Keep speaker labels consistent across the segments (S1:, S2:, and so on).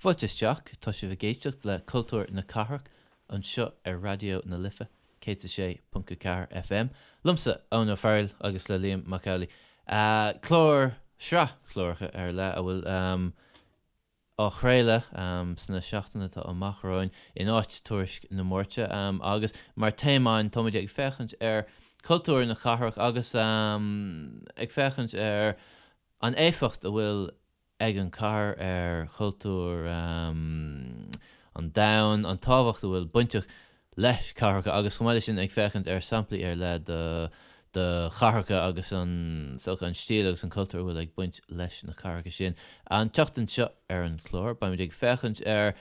S1: Fáilte isteach, tá sibh ag éisteacht le Cultúr na Cathrach anseo ar Raidió na Life 106.4 FM. Liomsa, Eoin Ó Fearghail agus le Liam Mac Amhlaigh. Clár, sraith cláracha ar leith a bhfuil á chraoladh sna seachtainí atá amach romhainn in áit Tuairisc na Máirte agus mar téama againn táimid ag féachaint ar chultúr na cathrach agus ag féachaint ar an éifeacht a bhfuil ag an chathair ar chultúr an domhain, an tábhacht a bhfuil bainteach leis cathracha agus chomh maith leis sin ag féachaint ar samplaí ar leith de de chathracha agus an is dócha an stíl agus an cultúr a bhfuil ag baint leis na cathracha sin. An tseachtain seo ar an chlár beimid ag féachaint ar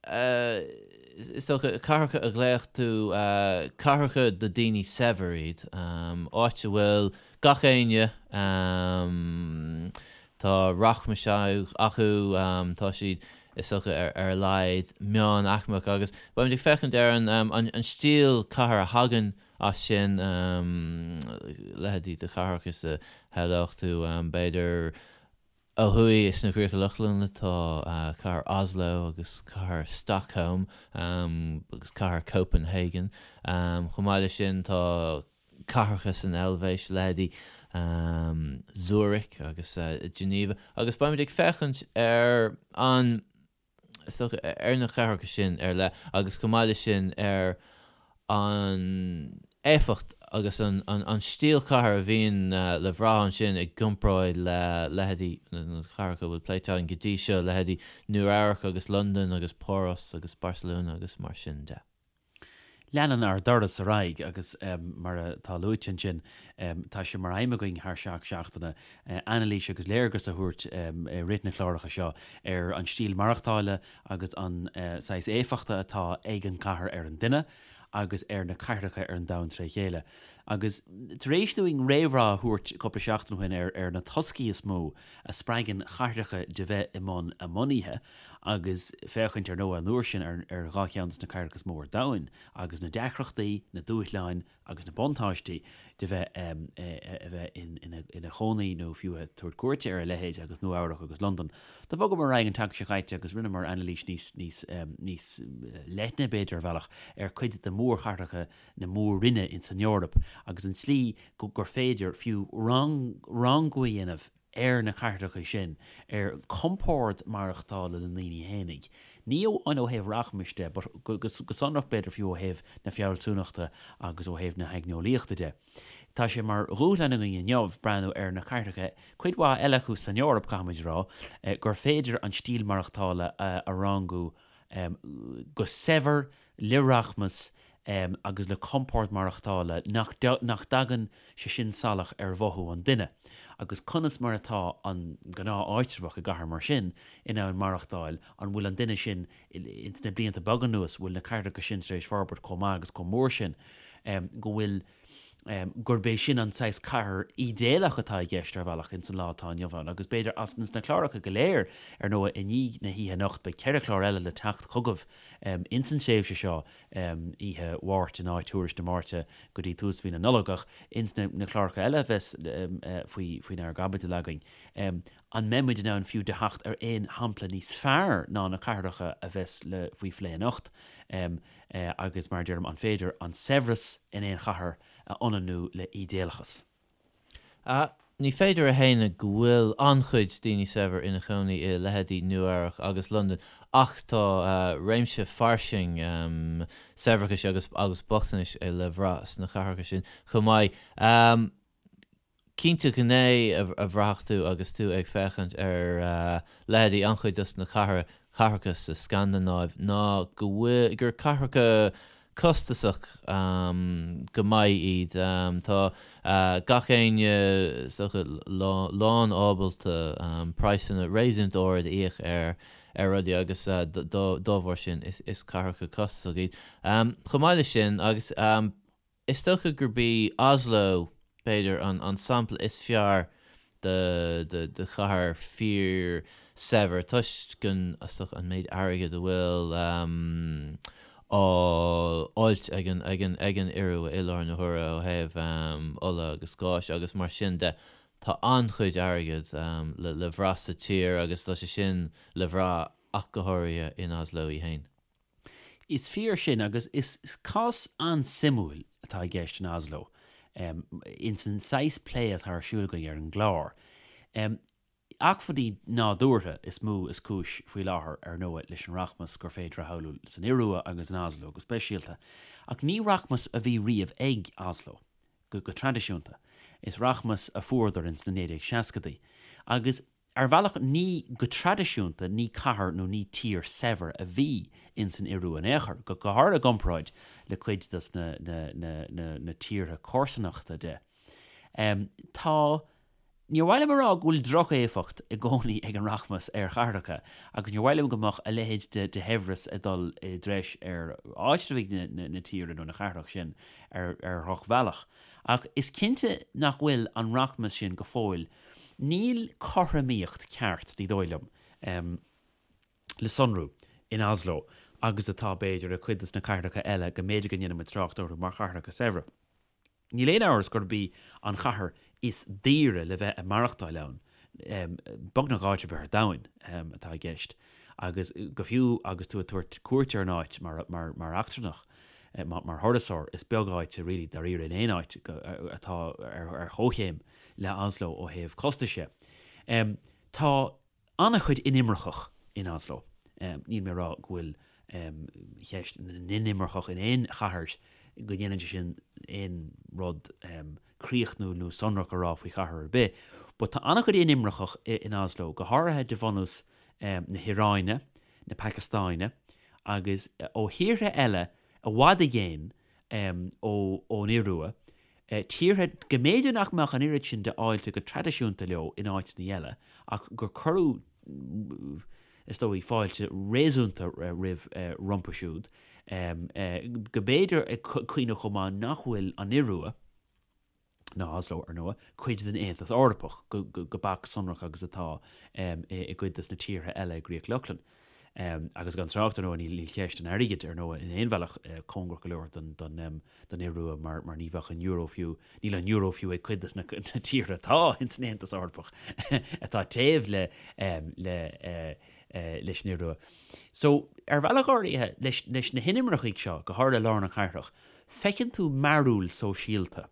S1: is dócha cathracha a ghlaofadh tú cathracha do daoine saibhir iad, áit a bhfuil gach éinne tá rachmas acu, tá siad is dócha, ar a laghad, meánaicmeach agus beimid ag féachaint ar an stíl cathair a thagann as sin, leithéidí de chathracha is a shamhlódh tú, b'fhéidir, ó thuaidh sna Críocha Lochlannacha tá cathair Oslo agus cathair Stockholm agus cathair Copenhagen. Chomh maith leis sin tá cathracha san Eilvéis, leithéidí Zurich agus Geneva, agus beimid ag féachaint ar an, is dócha, ar na cathracha sin ar leith agus chomh maith leis sin ar an éifeacht agus an stíl cathair a bhíonn le bhrath ansin i gcomparáid le leithéidí na cathracha a bhfuil pléite againn go dtí seo, leithéidí Nua Eabhrac agus Londain agus Páras agus Barcelona agus mar sin de.
S2: Leanann ár dturas ar aghaidh agus mar atá luaite ansin, tá sé mar aidhm againn thar 7 seachtaine anailís agus léargas a thabhairt i rith na cláracha seo ar an stíl maireachtála agus an saghas éifeachta atá ag an gcathair ar an duine agus ar na cathracha ar an domhan tré chéile. Agus tar éis dúinn réamhrá a thabhairt cúpla seachtain ó shin ar na toscaí is mó a spreagann cathracha de bheith i mbun a mbunaithe, agus féachaint, ar ndóigh, an uair sin ar dhá cheann de na cathracha is mó ar domhan, agus na deacrachtaí, na dúshláin agus na buntáistí de bheith a bheith ina chónaí nó fiú ag tabhairt cuairte ar a leithéid agus Nua Eabhrac agus Londain. Do bhogamar ar aghaidh an tseachtain seo caite agus rinneamar anailís níos níos níos leithne, b'fhéidir, ar bhealach, ar cuid de mhórchathracha na mór-roinne ins an Eoraip agus an tslí gur féidir fiú rangú a dhéanamh ar na cathracha sin, ar chompord maireachtála na ndaoine fhéinig, ní amháin ó thaobh rachmais de, but go sonrach b'fhéidir fiú ó thaobh na fealsúnachta agus ó thaobh na haigneolaíochta de. Tá sé mar dhúshlán againn inniu breathnú ar na cathracha, cuid mhaith eile acu san Eoraip, caithfimid a rá, gur féidir an stíl maireachtála a rangú go saibhir, le rachmas agus le compord maireachtála nach dtagann sé sin salach ar mhothú an duine, agus conas mar atá an gnáth-áitreabhach i gcathair mar sin in ann maireachtáil, an bhfuil an duine sin, ins na blianta beaga anuas, bhfuil na cathracha sin tar éis forbairt chomh maith agus chomh mór sin go bhfuil gurb é sin an saghas cathair ídéalach atá i gceist ar bhealach ins an lá atá inniu ann. Agus b'fhéidir as na cláracha go léir, ar ndóigh, i ndiaidh na hoíche anocht, beidh 4 chlár eile le teacht chugaibh ins an tréimhse seo, oíche Mháirt in áit Thuairisc na Máirte go dtí tús mhí na Nollag, ach ins na cláracha eile a bheas faoi faoinár gcaibidil againn, an mbeidh muid in ann fiú de theacht ar aon shampla níos fearr ná na cathracha a bheas le faoi phlé anocht? Agus mar a deirim, an féidir an saibhreas in aon chathair a ionannú le ídéalachas?
S1: Ní féidir a shéanadh go bhfuil an-chuid daoine saibhir ina chónaí i leithéidí Nua Eabhrac agus Londain ach tá réimse fairsing saibhreachais agus agus bochtanais le bhrath sna cathracha sin chomh maith. Cinnte gné a bhraithfeadh tú agus tú ag féachaint ar leithéidí an-chuid dos na cathracha sa Scandanáiv ná go bhfuil, gur cathracha costasach go maith iad. Tá gach éinne is dócha lán ábalta praghsanna réasúnta ard a íoc ar ar rudaí agus dá bharr sin is cathracha costasach iad. Chomh maith leis sin agus. Is dócha gurb í Oslo, b'fhéidir, an sampla is fearr de chathair fíor-shaibhir toisc an, is dócha, an méid airgid a bhfuil á fháilt ag an, ag an, ag an Iorua i láthair na huaire ó thaobh ola agus gáis agus mar sin de. Tá an-chuid airgid le, le bhrath sa tír agus tá sé sin le bhrath. ach go háirithe in Oslo í féin.
S2: Is fíor sin agus is cás an-suimiúil atá i gceist in Oslo ins an saghas plé atá ar siúl againn ar an gclár. Acmhainní nádúrtha is mó is cúis faoi láthair, ar ndóigh, leis an rachmas gur féidir a shamhlú san Iorua agus in Oslo go speisialta. Ach ní rachmas a bhí riamh ag Oslo, go traidisiúnta. Is rachmas a fuaireadar ins na 1960idí. Agus ar bhealach ní, go traidisiúnta, ní cathair nó ní tír saibhir a bhí ins an Iorua in aon chor, go háirithe i gcomparáid le cuid dos na, na, na, na, na tíortha comharsanachta de. Tá. Níor mhaith liom a rá go bhfuil droch-éifeacht i gcónaí ag an rachmas ar chathracha agus níor mhaith liom go mbeadh a leithéid de shaibhreas ag dul i dtreis ar áitreabhaigh na tíre nó na cathrach sin ar dhrochbhealach. Ach is cinnte nach bhfuil an rachmas sin go fóill, níl cothromaíocht ceart, ní dóigh liom, le sonrú in Oslo agus atá, b'fhéidir, i cuid de na cathracha eile go mb'fhéidir go ndéanfaidh muid trácht orthu mar chathracha saibhre. Níl aon amhras gurb í an chathair is daoire le bheith ag maireachtáil ann, beagnach áit ar bith ar domhan atá i gceist, agus go fiú agus tú ag tabhairt cuairt ar an áit mar eachtrannach, mar thurasóir, is beag áit really dáiríre in aon áit atá ar chomhchéim le Oslo ó thaobh costais de. Tá. an-chuid inimirceach in Oslo. Níl mé ag rá go bhfuil ceist na n-inimirceach in aon chathair, go ndéanann sé sin aon rud críochnúil nó sonrach a rá faoi chathair ar bith, but tá an-chuid inimirceach in Oslo, go háirithe de bhunús na hIaráine, na Pacastáine agus ó thíortha eile i bhfad i gcéin ón Iorua, tíortha go mb'fhéidir nach mbeadh an oiread sin de fháilte go traidisiúnta leo in áiteanna eile ach gur cuireadh, is dóigh, fáilte réasúnta roimh rompu siúd, go mb'fhéidir ag cuimhneamh chomh maith nach bhfuil an Iorua, ná Oslo, ar ndóigh, cuid den Aontas Eorpach go beacht sonrach agus atá i gcuid de na tíortha eile i gCríoch Lochlann. Agus gan trácht, ar ndóigh, níl ceist an airgid, ar ndóigh, in aon bhealach cóngarach go leor don Iorua mar ní bheadh an euro fiú, níl an euro fiú ag cuid de na tíortha atá ins an Aontas Eorpach atá taobh le leis an Iorua. So, ar bhealach áirithe, leis na hinimircigh seo, go háirithe i lár na cathrach, feiceann tú mearúil sóisialta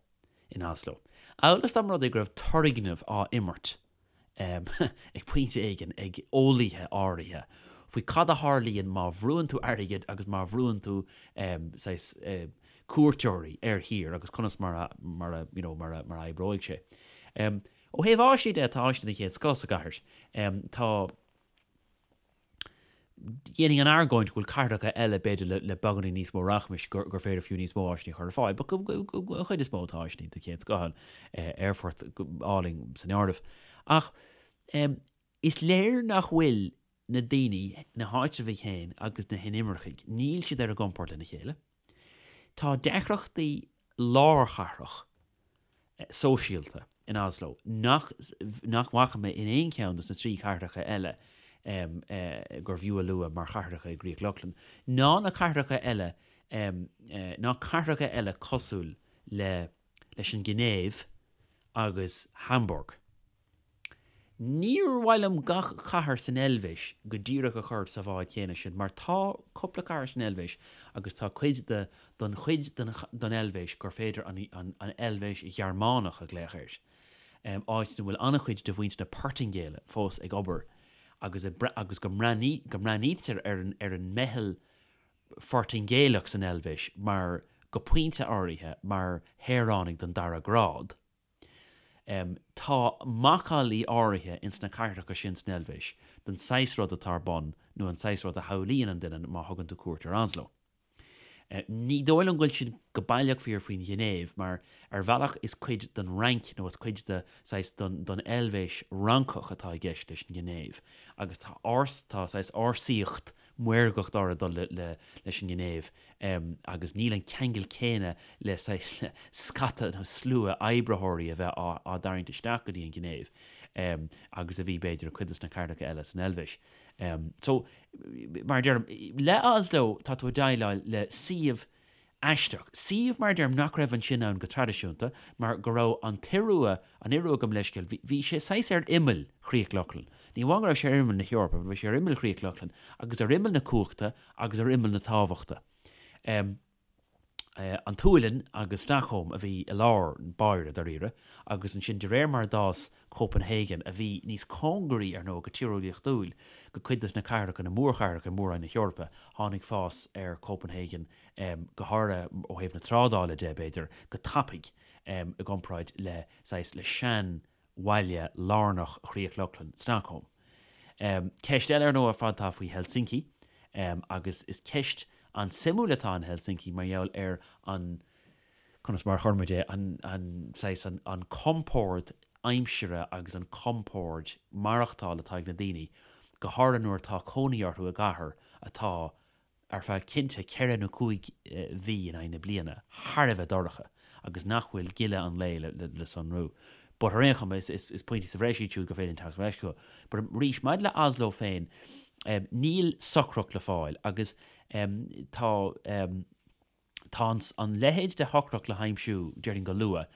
S2: in Oslo. Amhail is dá mba rud é go raibh turgnamh á imirt ag pointe éigin ag eolaithe áirithe faoi cad a tharlaíonn má bhrúann tú airgead agus má bhrúann tú saghas cuairteoirí ar thír agus conas mar a mar a you know mar a mar a oibreoidh sé. Ó thaobh áiseanna de, tá áiseanna den chéad scoth sa gcathair. Tá. Dhéanfainn an argóint go bhfuil cathracha eile, b'fhéidir, le beagáinín níos mó rachmais, gur féidir fiú níos mó áiseanna a chur ar fáil. But an chuid is mó tá áiseanna den chéad scoth ann, aerfort álainn san áireamh. Ach is léir nach bhfuil na daoine, na háitreabhaigh féin agus na hinimircigh, níl siad ar a gcompord lena chéile. Tá deacrachtaí lárchathrach sóisialta in Oslo nach nach bhfaca mé in aon cheann de na 3 chathracha eile gurbh fhiú a lua mar chathracha i gCríoch Lochlann, ná na cathracha eile ná cathracha eile cosúil le leis an Ghinéiv agus Hamburg. Níor mhaith liom gach cathair san Eilvéis go díreach a chur sa bhád chéanna sin mar tá cúpla cathair san Eilvéis agus tá cuid de don chuid den den Eilvéis gur féidir an an an Eilvéis Ghearmánach a ghlaoch air, áit ina bhfuil an-chuid de mhuintir na Portaingéile fós ag obair agus agus go mbreathnaí go mbreathnaítear ar an ar an meitheal Phortaingéalach san Eilvéis mar go pointe áirithe mar shaoránaigh den dara grád. Tá macallaí áirithe ins na cathracha sin san Eilvéis den saghas rud atá ar bun nó an saghas rud a shamhlaíonn an duine má thugann tú cuairt ar Oslo. Ní dóigh liom go bhfuil sin go baileach fíor faoin Ghinéiv mar ar bhealach is cuid den Fhrainc nó is cuid de saghas den den Eilvéis Fhrancach atá i gceist leis an Ghinéiv agus tá árs tá saghas ársaíocht maorgacht áirithe ag dul le le leis an nGinéiv. agus níl an ceangal céanna le saghas scata nó slua oibritheoirí a bheith á dtarraingt isteach go dtí an Ghinéiv agus a bhí, b'fhéidir, i cuid de na cathracha eile san Eilvéis. So, mar a deirim, le Oslo tá tú ag déileáil le suíomh aisteach, suíomh, mar a deirim, nach raibh ansin ann go traidisiúnta mar go raibh an tIorua, an Iorua gabh mo leithscéal, bhí sé saghas ar imeall Chríoch Lochlann. Ní amháin go raibh sé ar imeall na hEorpa, but bhí sé ar imeall Chríoch Lochlann agus ar imeall na cumhachta agus ar imeall na tábhachta. An tSualainn agus Stockholm a bhí i lár báire, dáiríre, agus ansin de réir mar a d'fhás Copenhagen, a bhí níos cóngaraí, ar ndóigh, go tíreolaíochtúil go cuid de na cathracha, na mórchathracha i Mór-Roinn na hEorpa, tháinig fás ar Copenhagen, go háirithe ó thaobh na trádála de, b'fhéidir, go tapaidh i gcomparáid le, saghas, le sean bhaile lárnach Chríoch Lochlann, Stockholm. Ceist eile ar ndóigh ar fad atá faoi Helsinki, agus is ceist an-suimiúil atá in Helsinki mar gheall ar an, conas mar a chuir muid é, an, an saghas, an, an compord aimsire agus an compord maireachtála atá ag na daoine, go háirithe nuair atá cónaí orthu i gcathair atá ar feadh cinnte ceithre nó cúig mhí in aghaidh na bliana, thar a bheith dorcha agus nach bhfuil gile an lae le sonrú. But ar aon chuma, is pointí sa bhreis iad siúd gur féidir linn teacht ar ais chucu. But arís, maidir le Oslo féin, níl socracht le fáil agus tá. Tá an leithéid de shocracht le haimsiú, déarfainn go luath,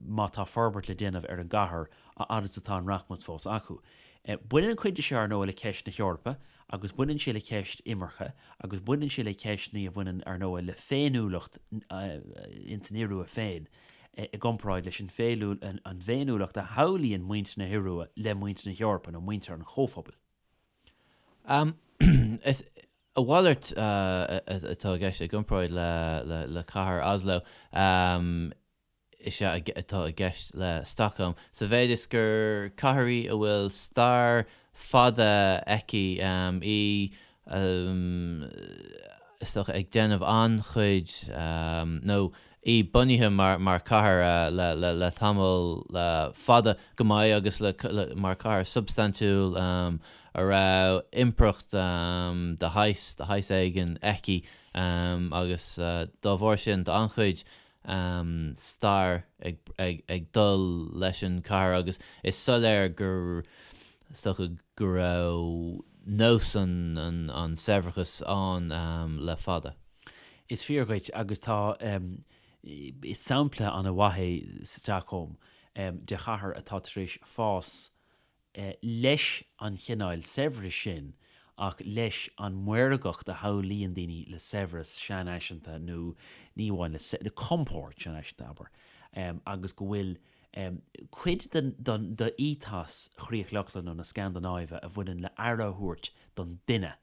S2: má tá forbairt le déanamh ar an gcathair a fhad is atá an rachmas fós acu. Baineann an chuid de seo, ar ndóigh, le ceist na hEorpa agus baineann sé le ceist imirce agus baineann sé le ceisteanna a bhaineann, ar ndóigh, le féiniúlacht ins an Iorua féin i gcomparáid leis an bhféiniúlacht a shamhlaíonn muintir na hIorua le muintir na hEorpa nó muintir an Chomhphobail.
S1: Is a mhalairt atá i gceist i gcomparáid le cathair Oslo is ea atá i gceist le Stockholm, sa mhéid is gur cathair í a bhfuil stair fada aici, í is dócha ag déanamh an-chuid nó í bunaithe mar chathair le tamall fada go maith agus mar chathair substaintiúil a raibh impireacht de shaghas de shaghas éigin aici agus dá bharr sin tá an-chuid stair ag dul leis an chathair agus is soiléir gur is dócha go raibh nós an saibhreachais ann le fada.
S2: Is fíor dhuit, agus tá, is sampla an-mhaith é Stockholm de chathair atá tar éis fás leis an chineál saibhris sin ach leis an maorgacht a shamhlaíonn daoine le saibhreas seanfhaiseanta nó ní amháin le, le compord seanfhaiseanta, abair, agus go bhfuil cuid den d'ethos Chríoch Lochlann nó na Scandanáive a bhaineann le aire a thabhairt don duine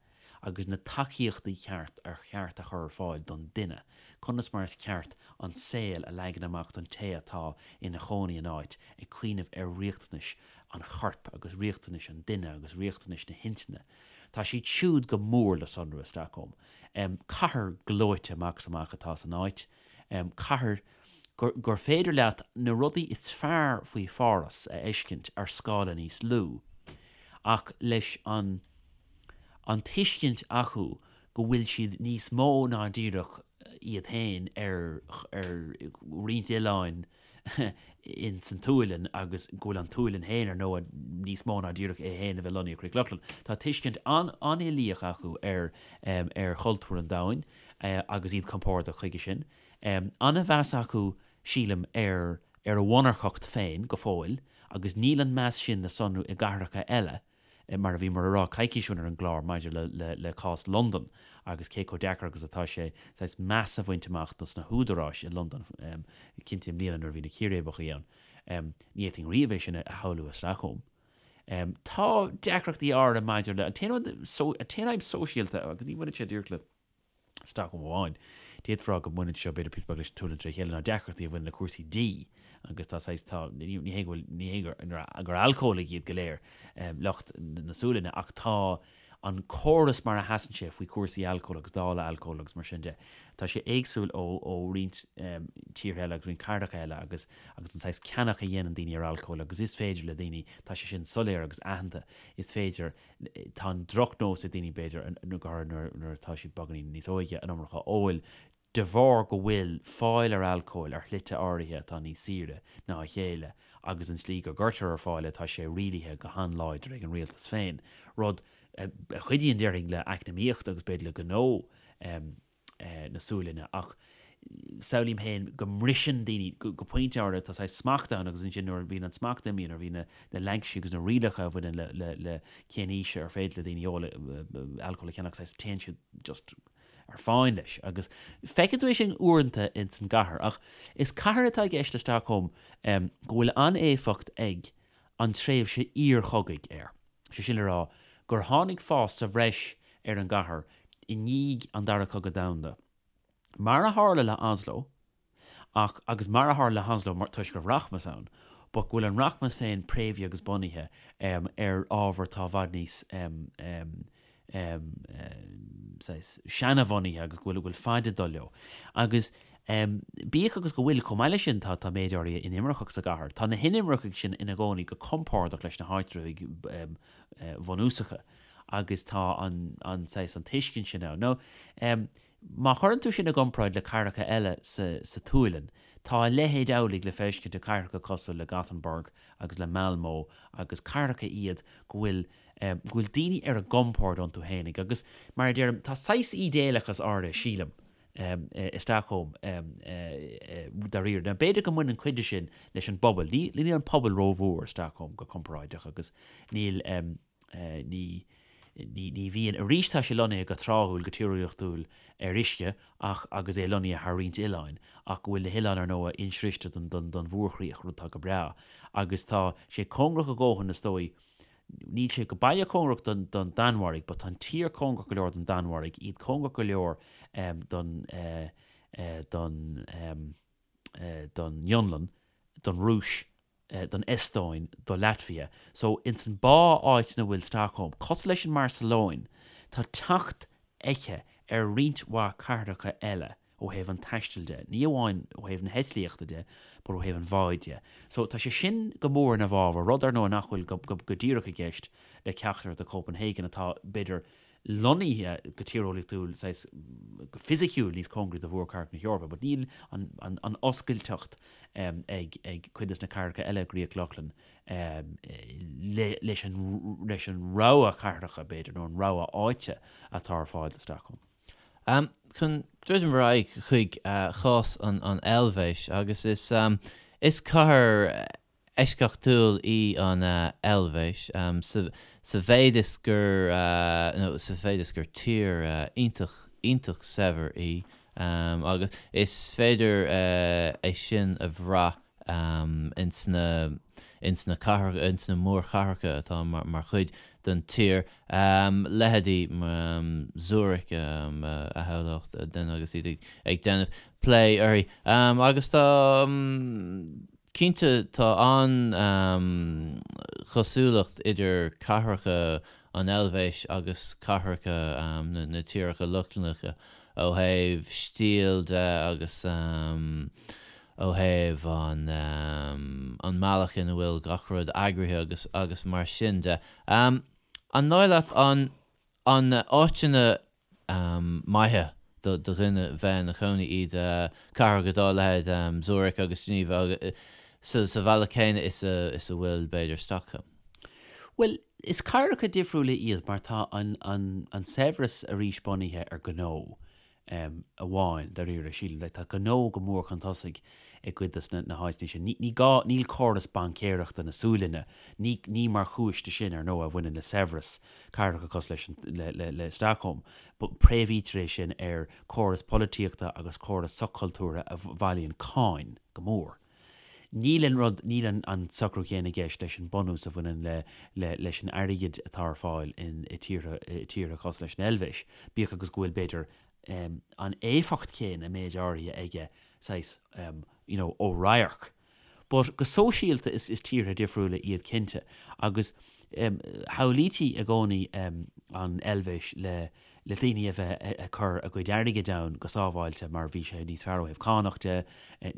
S2: agus na tacaíochtaí ceart ar cheart a chur ar fáil don duine, conas mar is ceart an saol a leagan amach don té atá ina chónaí in áit, ag cuimhneamh ar riachtanais an choirp agus riachtanais an duine agus riachtanais na hintinne. Tá siad siúd go mór le sonrú i Stockholm. Cathair gleoite amach is amach atá san áit. Cathair gur féidir leat na rudaí is fearr faoi Pháras a fheiscint ar scála níos lú, ach leis an an tuiscint acu go bhfuil siad níos mó ná díreach iad féin ar ar roinnt oileáin ins an tSualainn agus go bhfuil an tSualainn féin ar ndóigh níos mó ná díreach é féin a bheith lonnaithe i gCríoch Lochlann. Tá tuiscint an-uilíoch acu ar ar chultúr an domhain agus iad compordach chuige sin. An-mheas acu, sílim, ar ar a mhonarcacht féin go fóill agus níl an meas sin le sonrú i gcathracha eile, mar a bhíomar a rá coicís ó shin ar an gclár maidir le le le cás Londan agus cé chomh deacair agus atá sé saghas meas a bhaint amach dos na húdaráis i Londain, cinnte i mbliana nuair a bhí na círéibeacha ann. Ní fhéadfainn riamh é sin a shamhlú i Stockholm. Tá deacrachtaí áirithe maidir le, an t-aon rud, an t-aon fhadhb sóisialta, agus ní bhaineann sé díreach le. Stockholm amháin. D'fhéadfá a rá go mbaineann seo b'fhéidir píosa beag leis an tSualainn tré chéile ná deacrachtaí a bhaineann le cúrsaí dí agus tá saghas, tá, ní hé go bhfuil, ní hé gur, gur alcólaigh iad go léir lucht na Sualainne ach tá an córas mar a sheasann sé faoi chúrsaí alcóil agus dáileadh alcóil agus mar sin de, tá sé éagsúil ó, ó roinnt tíortha eile agus roinnt cathracha eile agus, agus an saghas ceannach a dhéanann daoine ar alcól agus is féidir le daoine, tá sé sin soiléir agus aitheanta, is féidir Tá an drochnós ag daoine, b'fhéidir, go háirithe nuair atá siad beagáinín níos óige, an iomarca a ól, de bharr go bhfuil fáil ar alcól ar shlite áirithe atá níos saoire ná a chéile agus an tslí go gcuirtear ar fáil é, tá sé rialaithe go han-láidir ag an rialtas féin, rud a chuidíonn, déarfainn, le eacnamaíocht agus b'fhéidir le gnó. na Sualainne ach Samhlaím féin go mbriseann daoine go pointe áirithe, tá saghas smacht ann agus ansin nuair a bhíonn an smacht imithe, nuair a bhíonn na laincisí agus na rialacha a bhaineann le cén aois ar féidir le daoine ól alcól a cheannach, saghas téann siad just ar fáin leis. Agus feiceann tú é sin uaireanta ins an gcathair. Ach is cathair atá i gceist le Stockholm go bhfuil an-éifeacht ag an tréimhse iarchogaidh air. Sé sin le rá gur tháinig fás sa bhreis ar an gcathair i ndiaidh an Dara Cogadh Domhanda. Mar a tharla le Oslo, ach, agus mar a tharla le hOslo mar, toisc go raibh rachmas ann, but go bhfuil an rachmas féin préamhaithe agus bunaithe ar ábhar atá i bhfad níos saghas seanabhunaithe agus go bhfuil, go bhfuil faid ag dul leo. Agus bíodh agus go bhfuil, chomh maith leis sin, tá, tá méid áirithe inimirceach sa gcathair, tá na hinimircigh sin ina gcónaí go compordach leis na háitritheoirí bhunúsacha agus tá an, an saghas, an tuiscint sin ann. Now, Má chuireann tú sin i gcomparáid le cathracha eile sa tSualainn, tá a leithéid amhlaidh le feiscint i cathracha cosúil le Gothenburg agus le Malmö agus cathracha iad go bhfuil go bhfuil daoine ar a gcompord iontu fhéinig agus, mar a deirim, tá saghas ídéalachas áirithe, sílim, i Stockholm dáiríre. Now b'fhéidir go mbaineann cuid de sin leis an bpobal. Níl an pobal rómhór i Stockholm go comparáideach agus níl. Ní, ní bhíonn. Arís tá sé lonnaithe go tráthúil, go tíreolaíochtúil ar uisce ach agus é lonnaithe thar roinnt oileáin ach go bhfuil na hoileáin ar ndóigh insroichte don, don, don mhórchríoch, rud atá go breá. Agus tá sé cóngarach a dhóthain is dóigh, níl sé go baile cóngarach don, don Danmhairg but tá an tír cóngarach go leor don Danmhairg, iad cóngarach go leor don, don, don Fhionlainn, don Rúis, don Eastóin, do Latvia. So, ins an bá áit ina bhfuil Stockholm, cosúil leis an mBarcelóin, tá teacht aici ar roinnt mhaith cathracha eile ó thaobh an taistil de, ní amháin ó thaobh na heitlíochta de, but ó thaobh an bháid de. So, tá sé sin go mór ina bhfabhar, rud ar ndóigh nach bhfuil go, go, go díreach i gceist le ceachtar de Copenhagen atá, b'fhéidir, lonnaithe go tíreolaíochtúil, saghas, go fisiciúil níos cóngaraí do mhórchathair na hEorpa, but níl an, an, an oscailteacht ag, ag cuid des na cathracha eile i gCríoch Lochlann le, leis an, leis an rogha cathracha, b'fhéidir, nó an rogha áite atá ar fáil do Stockholm.
S1: Chun druidim ar aghaidh chuig chás an, an Eilvéis, agus is, is cathair eisceachtúil í an Eilvéis sa mhéid is gur, nó sa mhéid is gur tír iontach, iontach saibhir í agus is féidir é sin a bhrath ins na, ins na cathracha, ins na mórchathracha atá mar chuid den tír, leithéidí Zurich a shamhlódh duine agus iad ag déanamh plé uirthi. Agus tá. Cinnte, tá an-chosúlacht idir cathracha an Eilvéis agus cathracha na tíortha Lochlannacha ó thaobh stíl de agus ó thaobh an mbealach ina bhfuil gach rud eagraithe agus agus mar sin de. An dóigh leat an áiteanna maithe do dhuine bheith ina chónaí iad cathracha dá leithéid Zurich agus Geneva sa bhealach céanna is a is a bhfuil b'fhéidir Stockholm.
S2: Bhuel, is cathracha difriúla iad mar tá an an an saibhreas arís bunaithe ar ghnó. amháin, dáiríre, sílim. Like, tá gnó go mór chun tosaigh i gcuid des na háiteanna sin. Ní, ní gá, níl córas baincéireachta na Sualainne, ní, ní mar chúis de sin, ar ndóigh, a bhaineann le saibhreas cathracha cosúil leis an, le, le, le Stockholm. But préamhaítear é sin ar córas polaitíochta agus córas soch-chultúrtha a bhailíonn cáin go mór. Níl an rud, níl an, an socrú céanna i gceist leis an bunús a bhaineann le, le, leis an airgead atá ar fáil in, i tíortha, i tíortha cosúil leis an Eilvéis, bíodh agus go bhfuil, b'fhéidir, an éifeacht chéanna i méid áirithe aige, saghas, you know, ó radharc. But go sóisialta is, is tíortha difriúla iad cinnte agus shamhlaítí i gcónaí an Eilvéis le, le daoine a bheith ag cur a gcuid airgid ann go sábháilte mar bhí sé níos fearr ó thaobh cánach de,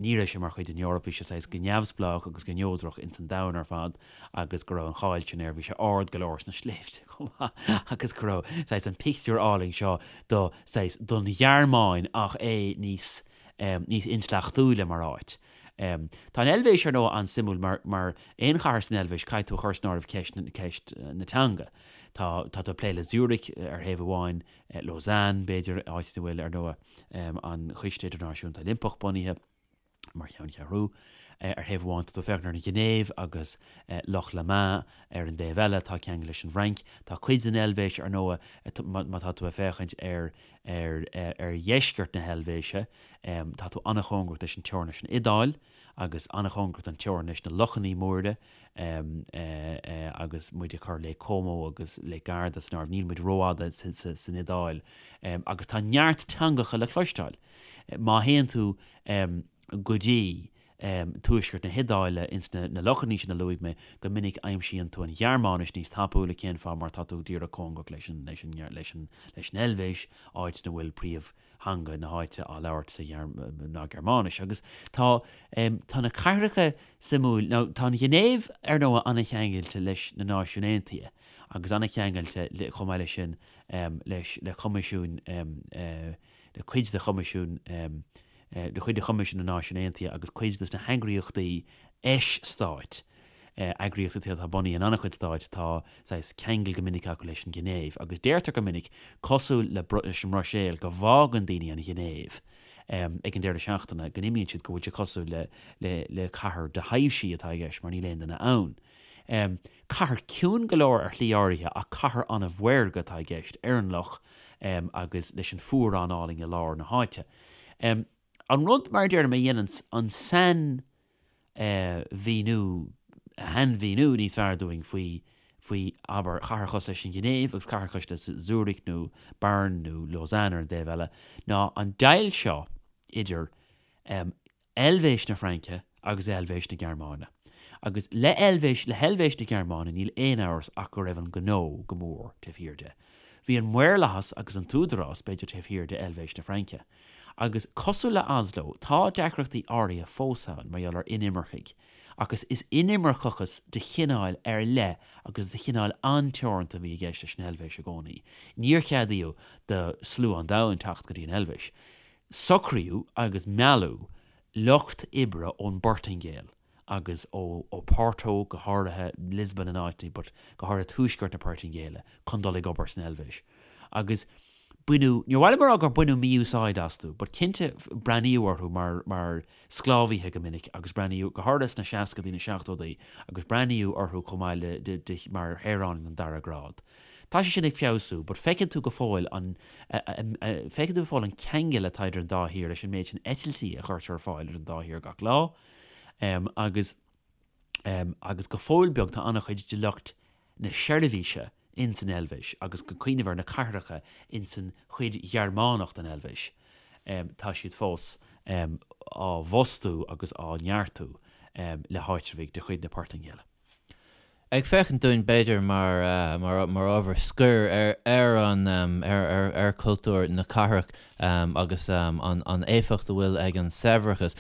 S2: ní raibh sé mar chuid den Eoraip, bhí sé saghas go neamhspleách agus go neodrach ins an domhan ar fad agus go raibh an cháil sin air, bhí sé ard go leor sna sléibhte chomh maith agus go raibh saghas an pictiúr álainn seo do saghas don Ghearmáin ach é níos níos intleachtúla mar áit. Tá an Eilvéis ar ndóigh an-suimiúil mar mar aon chathair san Eilvéis caithfidh tú a chur san áireamh ceist ceist na teanga. Tá, tá tú ag plé le Zurich ar thaobh amháin, Lausanne, b'fhéidir, áit ina bhfuil, ar ndóigh, an Coiste Idirnáisiúnta Oilimpeach bunaithe mar cheanncheathrú. Ar thaobh amháin, tá tú ag féachaint ar an Ghinéiv agus Loch Léman ar an dtaobh eile, atá ceangailte leis an bhFrainc. Tá cuid den Eilvéis, ar ndóigh, má tá tú ag féachaint ar ar dheisceart na hEilvéise, tá tú an-chóngarach leis an teorainn leis an Iodáil agus an-chóngarach don teorainn leis na lochannaí móra agus muid ag cur Lake Como agus Lake Garda san áireamh, níl muid rófhada san Iodáil agus tá neart teangacha le cloisteáil. Má théann tú go dtí tuaisceart na hIodáile ins na lochannaí sin a luaigh mé, go minic aimsíonn tú an Ghearmáinis níos tapúla, cén fáth? Mar tá tú díreach cóngarach leis an leis an leis an leis an Eilvéis, áit ina bhfuil príomhtheanga na háite á labhairt sa ná Gearmáinis. Agus tá tá na cathracha suimiúil, now tá an Ghinéiv ar ndóigh an-cheangailte leis na Náisiúin Aontaithe agus an-cheangailte chomh maith leis sin leis le Coimisiún le cuid de Choimisiún le cuid de Choimisiún na Náisiún Aontaithe agus cuid de na heagraíochtaí eis-stáit, eagraíochtaí atá bunaithe in an-chuid stáit, tá saghas ceangal go minic acu leis an Ghinéiv. Agus deirtear go minic, cosúil le leis an mBruiséil, go bhfágann daoine an Ghinéiv ag an deireadh seachtaine, go n-imíonn siad, go bhfuil sé cosúil le le le cathair do thaibhsí atá i gceist mar níl aon duine ann. Cathair ciúin go leor ar shlí áirithe ach cathair an-mhaorga atá i gceist ar an loch agus leis an fuarán álainn i lár na háite. An rud, mar a deirim, a dhéananns an sainmhíniú, shainmhíniú níos fearr dúinn faoi, faoi, abair, chathair cosúil leis an Ghinéiv agus cathair cosúil le Zurich nó Bern nó Lausanne ar an dtaobh eile, ná an deighilt seo idir Eilvéis na Fraince agus Eilvéis na Gearmáine. Agus le Eilvéis, le hEilvéis na Gearmáine níl aon amhras ach go raibh an gnó go mór taobh thiar de. Bhí an maorlathas agus an t-údarás, b'fhéidir, taobh thiar de Eilvéis na Fraince. Agus cosúil le Oslo, tá deacrachtaí áirithe fós ann mar gheall ar inimircigh. Agus is inimirceachas de chineál ar leith agus de chineál an-teoranta a bhí i gceist leis an Eilvéis i gcónaí. Níor ceadaíodh do slua an domhain teacht go dtí an Eilvéis. Socraíodh agus mealladh lucht oibre ón bPortaingéil agus ó Oporto, go háirithe Lisbon in áiteanna, but go háirithe tuaisceart na Portaingéile, chun dul ag obair san Eilvéis. Agus baineadh, níor mhaith liom a rá gur baineadh mí-úsáid astu, but cinnte breathnaíodh orthu mar, mar sclábhaithe go minic agus breathnaíodh, go háirithe sna seascadaí, na seachtódaí, agus breathnaíodh orthu chomh maith le, de, de, mar shaoránaigh den dara grád. Tá sé sin ag feabhsú, but feiceann tú go fóill an, feiceann tú go fóill an ceangal atá idir an dá thír leis an méid sin eitiltí a chuirtear ar fáil idir an dá thír gach lá. Agus, agus go fóill beag tá an-chuid de lucht na seirbhíse ins an Eilvéis agus go cuimhneamh ar na cathracha ins an chuid Ghearmánach den Eilvéis, tá siad fós á bhfostú agus á neartú le háitreabhaigh de chuid na Portaingéile.
S1: Ag féachaint dúinn, b'fhéidir, mar, mar ábhar scoir ar, ar an, ar, ar, ar chultúr na cathrach agus an, an éifeacht a bhfuil ag an saibhreachas.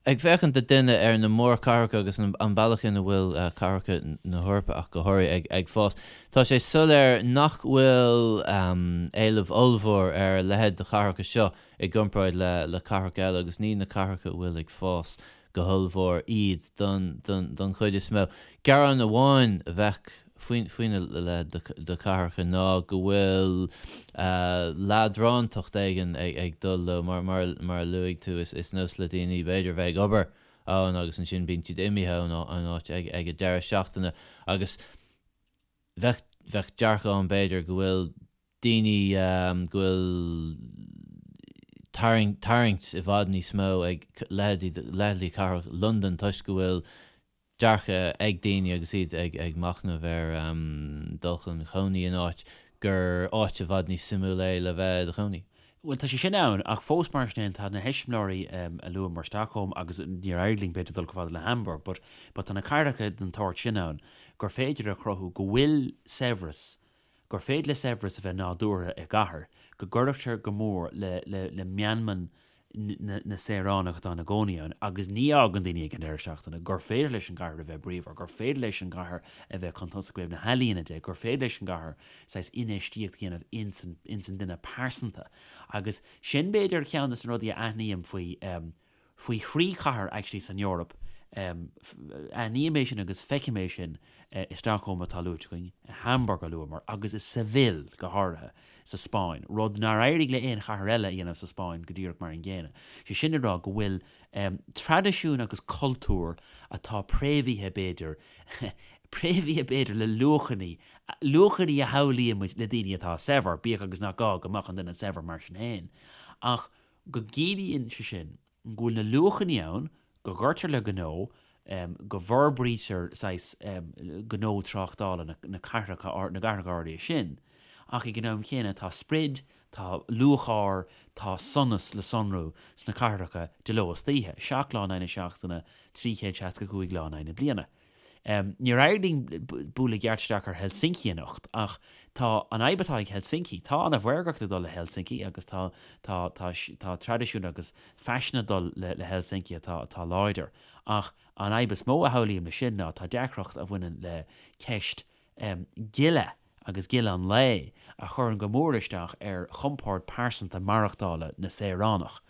S1: Ag féachaint do duine ar na mórchathracha agus an, an bealach ina bhfuil cathracha na hEorpa ach go háirithe ag, ag fás, tá sé soiléir nach bhfuil éileamh ollmhór ar a leithéid de chathracha seo i gcomparáid le, le cathracha eile agus ní na cathracha a bhfuil ag fás go hollmhór iad don chuid is mó. Gearán amháin a bheadh faoina leithéid de chathracha ná go bhfuil leadrántacht éigin ag dul leo. Mar a luaigh tú, is nós le daoine b'fhéidir bheith ag obair ann agus ansin bíonn siad imithe ón áit ag an deireadh seachtaine agus bheadh dearcadh ann b'fhéidir go bhfuil daoine go bhfuil tarraingt i bhfad níos mó ag leithéidí cathrach Londan toisc go bhfuil dearcadh ag daoine agus iad ag machnamh ar dul chun cónaí in áit gur áit i bhfad níos suimiúla é le bheith i do chónaí.
S2: Bhuel, tá sé sin ann, ach fós mar sin féin, tá na heiseamláirí a luamar, Stockholm agus níor éirigh linn b'fhéidir dul chomh fada le Hamburg, but but tá na cathracha den tsórt sin ann gur féidir a chruthú go bhfuil saibhreas gur féidir le saibhreas a bheith nádúrtha i gcathair, go gcuirtear go mór le le meanman na saoránach atá ina gcónaí ann agus ní fhágann daoine ag an deireadh seachtaine, gur féidir leis an gcathair a bheith bríomhar, gur féidir leis an gcathair a bheith chun tosaigh ó thaobh na healaíona de, gur féidir leis an gcathair saghas infheistíocht a dhéanamh ins an ins an duine pearsanta. Agus sin b'fhéidir ceann de na rudaí a aithním faoi faoi thrí chathair actually san Eoraip. Aithním é sin agus feicim é sin i Stockholm atá luaite againn, i Hamburg a luamar, agus i Seville go háirithe sa Spáinn, rud nár éirigh le aon chathair eile a dhéanamh sa Spáinn go díreach mar an gcéanna. Sé sin le rá go bhfuil traidisiún agus cultúr atá préamhaithe b'fhéidir, préamhaithe b'fhéidir le luachanna, luachanna a shamhlaíonn muid le daoine atá saibhir, bíodh agus nach gá go mbeadh an duine saibhir mar sin féin, ach go gciallaíonn sé sin go bhfuil na luachanna ann, go gcuirtear le gnó, go bhforbraítear saghas gnó tráchtála na cathracha, na gcathracha áirithe sin, ach ag an am chéanna tá sprid, tá lúcháir, tá sonas le sonrú sna cathracha de ló is d'oíche, 7 lá in aghaidh na seachtaine, 365 lá in aghaidh na bliana. Níor éirigh linn bualadh i gceart isteach ar Helsinki anocht ach tá an fhadhb atá ag Helsinki, tá an-mhaorgacht ag dul le Helsinki agus tá, tá, tá, tá traidisiún agus faisean ag dul le, le Helsinki atá, atá láidir ach an fhadhb is mó a shamhlaím leis sin ná tá deacracht a bhaineann le ceist gile agus gile an lae a chuireann go mór isteach ar chompord pearsanta maireachtála na saoránach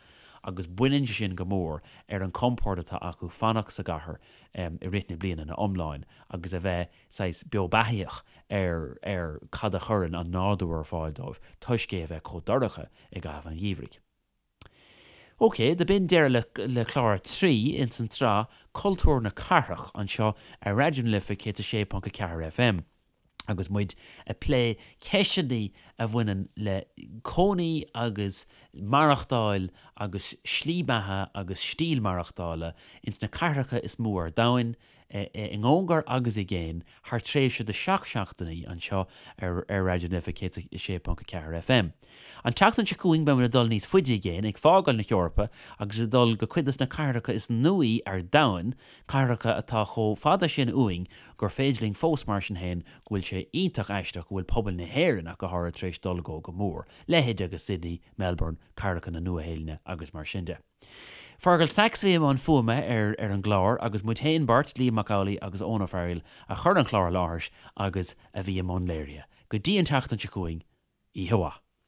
S2: agus baineann sé sin go mór ar an chompord atá acu fanacht sa gcathair i rith na bliana ina iomláin agus a bheith saghas beo beathaíoch ar ar cad a chuireann an nádúr ar fáil dóibh toisc é a bheith chomh dorcha i gcaitheamh an gheimhridh. Ok, do b'in deireadh le clár 3 ins an tsraith Cultúr na Cathrach anseo ar Raidió na Life 106.4 FM agus muid ag plé ceisteanna a bhaineann le cónaí agus maireachtáil agus slí beatha agus stíl maireachtála ins na cathracha is mó ar domhain. i gcóngar agus i gcéin thar tréimhse de 7 seachtainí anseo ar ar Raidió na Life 106.4 FM. An tseachtain seo chugainn beimid ag dul níos faide i gcéin, ag fágáil na hEorpa agus ag dul go cuid des na cathracha is nuaí ar domhan, cathracha atá chomh fada sin uainn gur féidir linn fós mar sin féin go bhfuil sé iontach aisteach go bhfuil pobal na hÉireann ach go háirithe tar éis dul go go mór, leithéid agus Sydney, Melbourne, cathracha na Nua-Shéalainne agus mar sin de. Fergal Sachs a bhí i mbun fuaime ar ar an gclár agus muid féin beirt, Liam Mac Amhlaigh agus Eoin Ó Fearghaíl, a chuir an clár i láthair agus a bhí i mbun léirithe. Go dtí an tseachtain seo chugainn, oíche mhaith.